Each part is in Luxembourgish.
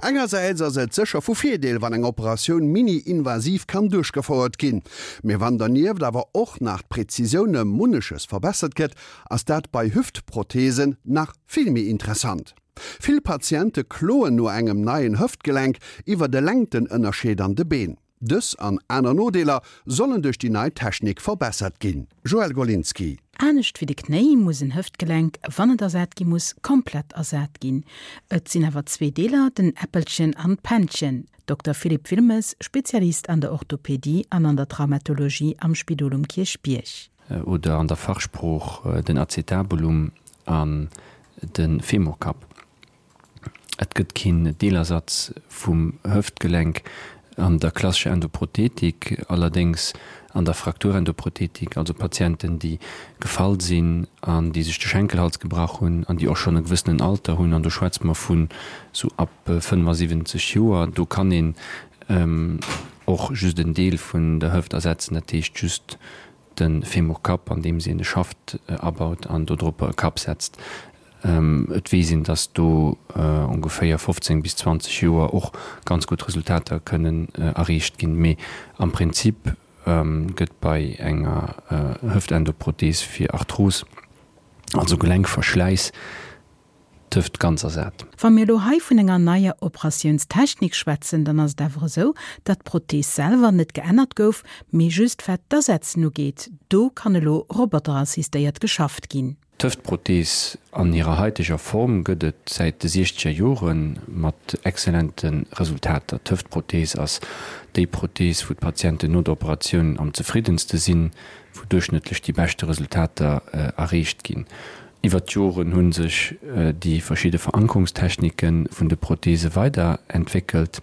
Engersäits ass et sécher vu Virdeel, wann eng Operatioun mini-invasiv kann duerchgefouert ginn. Mee wann dernieft awer och nach d'Präzisioun ëm munneches verbessert gëtt, ass dat bei Hüftprotheesen nach vill méi interessant. Vill Patiente kloen no engem neien Hëftgelenk iwwer de Längtenënnerscheed an de Been. Dës an aner Nodeeler sollen duerch déi nei Technik verbessert ginn. Joëlle Golinski. Anescht wéi de Knéi muss en Hëftgelenk, wann et ersat gi muss, komplett ersat ginn. Et sinn awer zwee Deeler, den Äppelchen an d'Pännchen. Dokter Philippe Wilmes, Spezialist an der Orthopedie an an der Traumatologie am Spidol um Kierchbierg. Oder an der Fachsprooch den Acetabulum an de Femurkapp. Et gëtt keen Deelersatz vum Hëftgelenk an der klassescher Endoprothetik, allerdéngs an der Frakturendoprothetik, also Patienten, déi gefall sinn an déi sech de Schenkelhals gebrach hunn an déi och schonn e gewëssenen Alter hunn, an do schwätze mer vun esou ab 75 Joer, do kann een och just en Deel vun der Hëft ersetzen, dat heescht just de Femurkapp, andeems een e Schaft abaut an dodropper e Kapp setzt. Et weess een, datt do ongeféier 15 bis 20 Joer och ganz gutt Resultater kënnen erreecht ginn. Mee am Prinzip gëtt bei enger Hëftendoprothees fir Arthros, also Gelenkverschläiss, d'Hëft ganz ersat. Wa mir elo hei vun enger neier Operatiounstechnik schwätzen, dann ass et awer esou, datt d'Prothees selwer net geännert gouf, mee just wat d'Asetzen ugeet, do kann elo roboterassistéiert geschafft ginn. D'Hëftprothees an hirer haiteger Form gëtt et säit de siechzeger Jore mat excellente Resultater. D'Hëftprothees ass déi Prothees, wou d'Patienten no der Operatioun am zefriddenste sinn, wou duerchschnëttlech déi beschte Resultater erreecht ginn. Iwwer d'Joren hu sech déi verschidde Verankerungstechnike vun de Protheese weiderentwéckelt,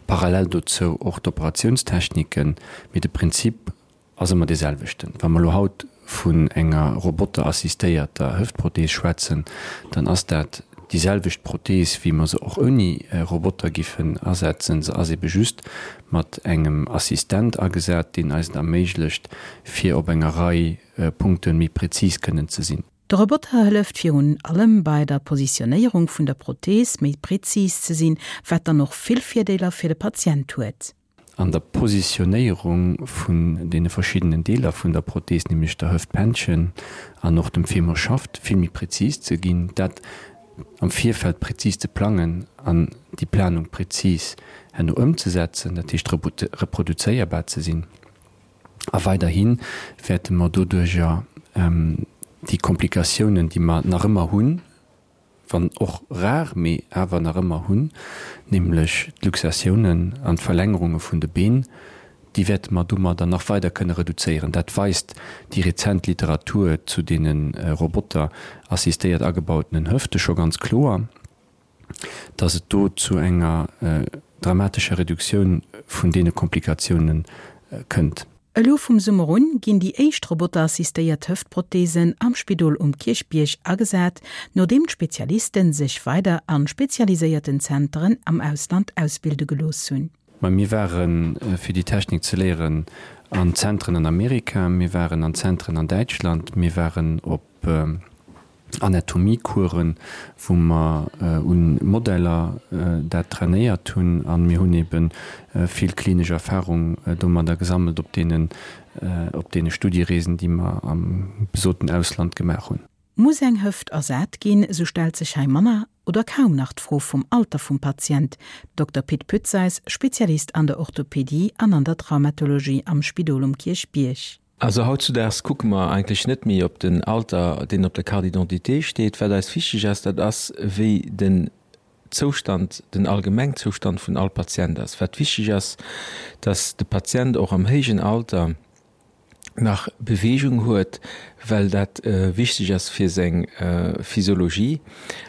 parallel dozou och d'Operatiounstechniken, mee de Prinzip ass ëmmer dee selwechten. Wa mer elo haut vun enger roboterassistéierter Hëftprothees schwätzen, dann ass dat déi selwecht Prothees, wéi mer se och ouni Roboter giffen asetzen. Se ass ebe just mat engem Assistent agesat, deen eis et erméiglecht, fir op enger Rei Punkte méi prezis kënnen ze sinn. De Roboter hëlleft virun allem bei der Positionéierung vun der Prothees méi prezis ze sinn, wat dann och vill Virdeeler fir de Patient huet. An der Positionéierung vun deene verschiddenen Deeler vun der Prothees, nämlech der Hëftpännchen an och dem Femurschaft, vill méi prezis ze ginn, dat am Virfeld prezis ze plangen an déi Planung prezis herno ëmzesetzen, dat heescht reproduzéierbar ze sinn. A weiderhi wäerte mer doduerjer déi Komplikatiounen, déi mer nach ëmmer hunn, wann och rar, mee awer nach ëmmer hunn, nämlech d'Luxatiounen an d'Verlängerunge vun de Been, déi wäerte mer domadder nach weider kënne reduzéieren. Dat weist déi rezent Literatur zu deene roboterassistéiert agebautenen Hëfte scho ganz kloer. dass et do zu enger dramatescher Reduktioun vun deene Komplikatioune kënnt. Elo vum Summer un ginn déi éischt roboterassistéiert Hëftprotheesen am Spidol um Kierchbierg agesat, nodeem d'Spezialisten sech weider a spezialiséierten Zenteren am Ausland ausbilde gelooss hunn. Mä mir ware fir déi Technik ze léieren an Zentren an Amerika, mir waren an Zentren an Däitschland, mir waren op Anatomiecoursen, wou mer un Modeller dat trainéiert hunn a mir hunn ebe vill klinesch Erfahrung domadder gesammelt op deenen, op deene Studiereesen, déi mer am besoten Ausland gemaach hunn. Muss eng Hëft ersat ginn, esou stellt sech hei manner oder kaum nach d'Fro vum Alter vum Patient. Dokter Pit Putzeys, Spezialist an der Orthopedie an an der Traumatologie am Spidol um Kierchbierg. Also hautzudaags kucke mer eigentlech net méi op den Alter, deen op der Carte d'identité steet. Wat eis wichteg ass, dat ass, wéi den Zoustand, den Allgemengzoustand vun all Patient ass. Wat wichteg ass, dass de Patient och am héijen Alter nach Beweegung huet, well dat wichteg ass fir seng Physiologie.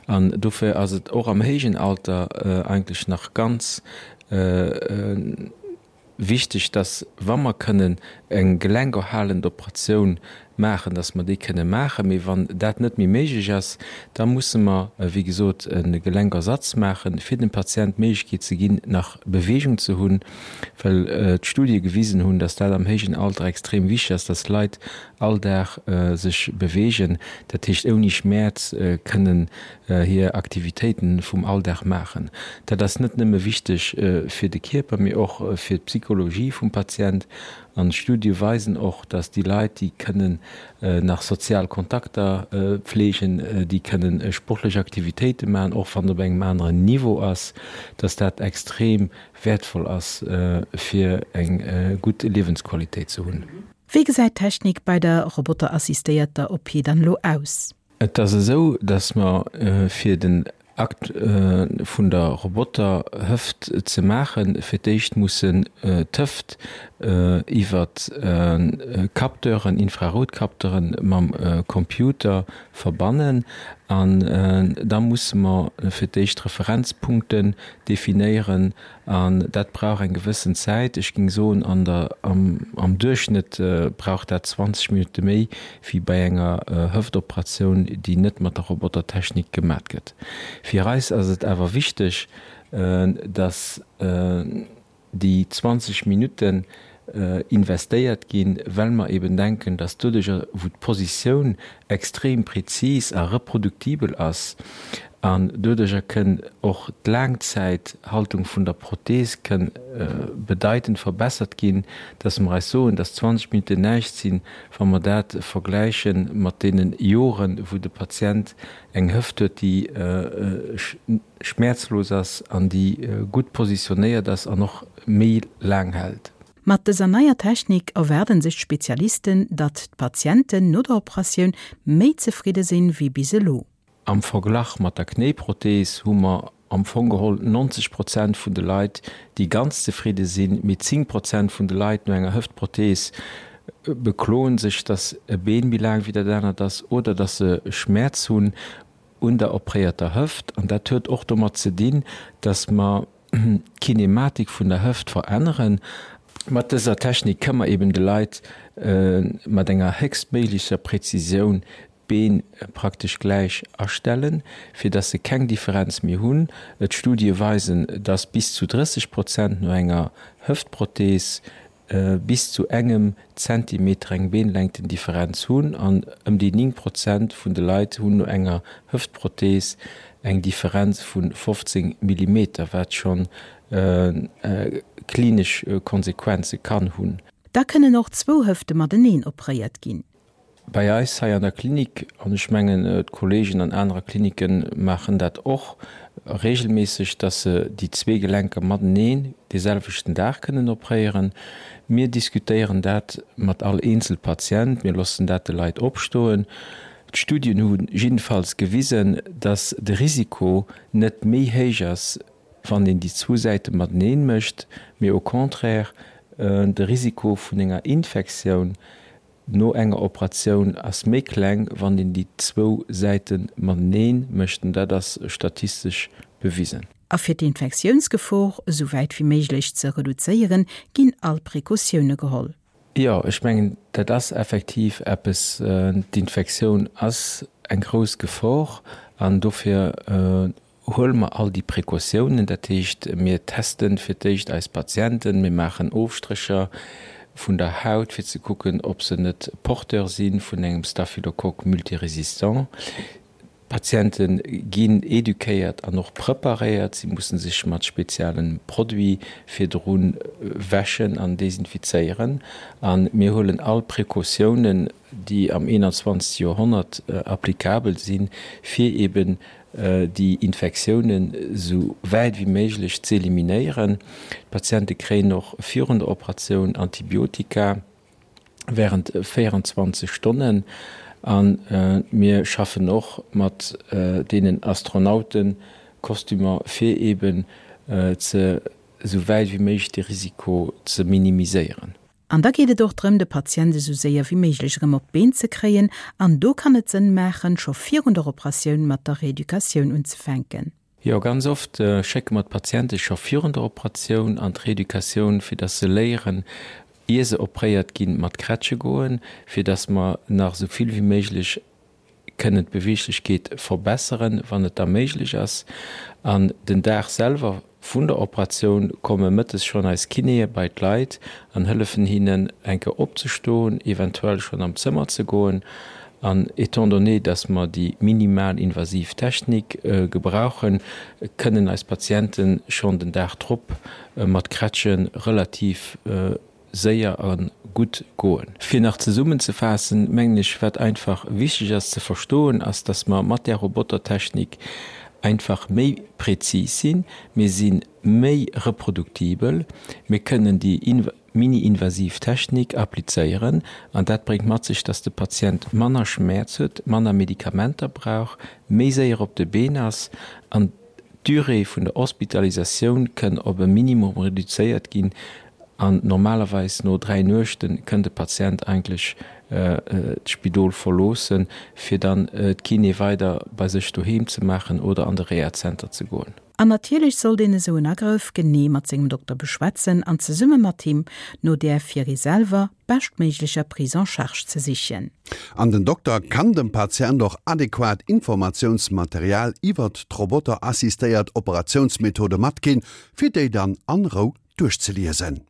An dofir ass et och am héijen Alter eigentlech nach ganz Wichteg, dass, wa mer kënnen eng gelenkerhalend Operatioun maachen, dass mer déi kënne maachen. Mee wann dat net méi méiglech ass, da musse mer, wéi gesot, e Gelenkersatz maachen, fir dem Patient d'Méiglechkeet ze ginn, nach Beweegung ze hunn, well d'Studie gewisen hunn, dass dat am héijen Alter extrem wichteg ass, dass d'Leit all Dag sech beweegen, dat heescht ouni Schmäerz kënnen hir Aktivitéiten vum Alldag maachen. Dat ass net nëmme wichteg fir de Kierper, mee och fir d'Psychologie vum Patient. An d'Studie weisen och, dass déi Leit, déi kënnen nach sozial Kontakter pflegen, déi kënnen sportlech Aktivitéite maachen, och wann et op engem aneren Niveau ass, dass dat extrem wäertvoll ass, fir eng gutt Liewensqualitéit ze hunn. Wéi gesäit d'Technik bei der roboterassistéierter OP dann elo aus? Et ass esou, dass mer fir den Akt vun der Roboterhëft ze maachen, fir d'éischt mussen d'Hëft iwwer Capteuren, Infraroutcapteuren, mam Computer verbannen. An da musse mer fir d'éischt Referenzpunkten definéieren An dat brauch eng gewëssen Zäit. Ech géing soen, an der, am Duerchschnëtt brauch dat 20 Minutte méi wéi bei enger Hëftoperatioun, déi net mat der Robotertechnik gemat gëtt. Fir eis ass et awer wichteg, datt déi 20 Minutten investéiert ginn, well mer eben denken, datt doduercher, wou d'Positioun extrem prezis a reproduktibel ass an doduercher kënn och d'Laangzäithaltung vun der Prothees kënn bedeitend verbessert ginn, datt mer eis soen, datt 20 Minutten näischt sinn, wa mer dat vergläiche mat deene Joren, wou de Patient eng Hëft huet, déi schmäerzlos ass an déi gutt positionéiert ass an och méi laang hält. Mat dëser neier Technik erwaarden sech d'Spezialisten, datt d'Patienten no der Operatioun méi zefridde sinn, wéi bis elo. Am Verglach mat der Knéiprothees hu mer am Fong geholl 90 Prozent vun de Leit, déi ganz zefridde sinn, mee 10 Prozent vun de Leit no enger Hëftprothees bekloen sech, datt e Been méi laang wéi dat anert ass oder datt se Schmäerz hunn un der opréierter Hëft. An dat huet och domat ze dinn, datt mer d'Kinematik vun der Hëft veränneren. Mat dëser Technik kënne mer eben de Leit mat enger héchstméiglecher Präzisioun d'Been praktesch gläich astellen, fir datt se keng Differenz méi hunn. D'Studie weisen, datt bis zu 30 Prozent no enger Hëftprothees bis zu engem Zentimeter eng Beenlängtendifferenz hunn an ëm déi 9 Prozent vun de Leit hunn no enger Hëftprothees eng Differenz vu 15 Millimeter, wat schonn klinesch Konsequenze kann hunn. Da kënnen och zwou Hëfte mateneen opréiert ginn. Bei eis hei an der Klinik, an ech mengen d'Kollegen an anerer Klinike maachen dat och regelméisseg, dass se déi zwee Gelenker mateneen dee selwechten Dag kënnen opréieren. Mir diskutéieren dat mat all eenzel Patient, mir loossen dat de Leit opstoen. D'Studien hu jiddefalls gewisen, dass de Risiko net méi héich ass, wann een déi zwou Säite mateneen mécht, mee au contraire de Risiko vun enger Infektioun No enger Operatioun ass méi kleng, wann een déi zwou Säite matenee mécht, an dat ass statistesch bewisen. A fir d'Infektiounsgefor esou wäit wéi méiglech ze reduzéieren, ginn all Precautioune geholl. Jo, ech mengen, dat ass effektiv eppes. D'Infektioun ass eng grouss Gefor an dofir huele mer all déi Precautiounen, dat heescht, mir teste fir d'éischt eis Patienten, mir maachen Ofstrécher vun der Haut, fir ze kucken, ob se net Porteur si vun engem Staphylocoque multirésistant. D'Patiente ginn eduquéiert an och preparéiert, si musse sech mat spezielle Produite virdru wäschen an desinfizéieren. A mir huelen all Precautiounen, déi am 21. Joerhonnert applicabel sinn, fir eben déi Infektiounen esou wäit wéi méiglech z'eliminéieren. D'Patiente kréien och virun der Operatioun Antibiotika wärend 24 Stonnen. A mir schaffen och mat deenen Astronautenkostümer, fir eben ze esou wäit wéi méiglech de Risiko ze minimiséieren. An da geet et och drëm, de Patient esou séier wéi méiglech erëm op d'Been ze kréien. An do kann et Sënn maachen, scho virun der Operatioun mat der Reeducatioun unzefänken. Jo, ganz oft schécke mer d'Patiente scho virun der Operatioun an d'Reeducatioun, fir dass se léieren, Ier se opréiert ginn, mat Krätsche goen, fir dass mer nach esou vill wéi méiglech kënnen d'Beweeglechkeet verbesseren, wann et da méiglech ass. An den Dag selwer vun der Operatioun komme mëttes schonn eis Kinéë bei d'Leit an hëllefen hinnen, eng Kéier opzestoen, eventuell schonn am Zëmmer ze goen. An étant donné, dass mer déi minimal invasiv Technik gebrauchen, kënnen eis Patiente schonn den Dag drop mat Krätsche relativ séier a gutt goen. Fir nach zesummenzefaassen, mengen ech, wat einfach wichteg ass ze verstoen, ass, dass mer mat där Robotertechnik einfach méi prezis sinn, mir si méi reproduktibel, mir kënnen déi mini-invasiv Technik applizéieren an dat bréngt mat sech, dass de Patient manner Schmäerz huet, manner Medikamenter brauch, méi séier op de Been ass an d'Durée vun der Hospitalisatioun kënn op e Minimum reduzéiert ginn an normalerweis no 3 Nuechte kënn de Patient eigentlech d'Spidol verloossen, fir dann d'Kiné weider bei sech doheem ze maachen oder an de Rehazenter ze goen. An natierlech sollt een esou en Agrëff genee mat sengem Dokter beschwätzen an zesumme mat him no där fir ee selwer beschtméiglecher Prise en charge ze sichen. An den Dokter kann dem Patient och adequat Informatiounsmaterial iwwert d'roboterassistéiert Operatiounsmethode matginn, fir déi dann an Rou duerchzeliesen.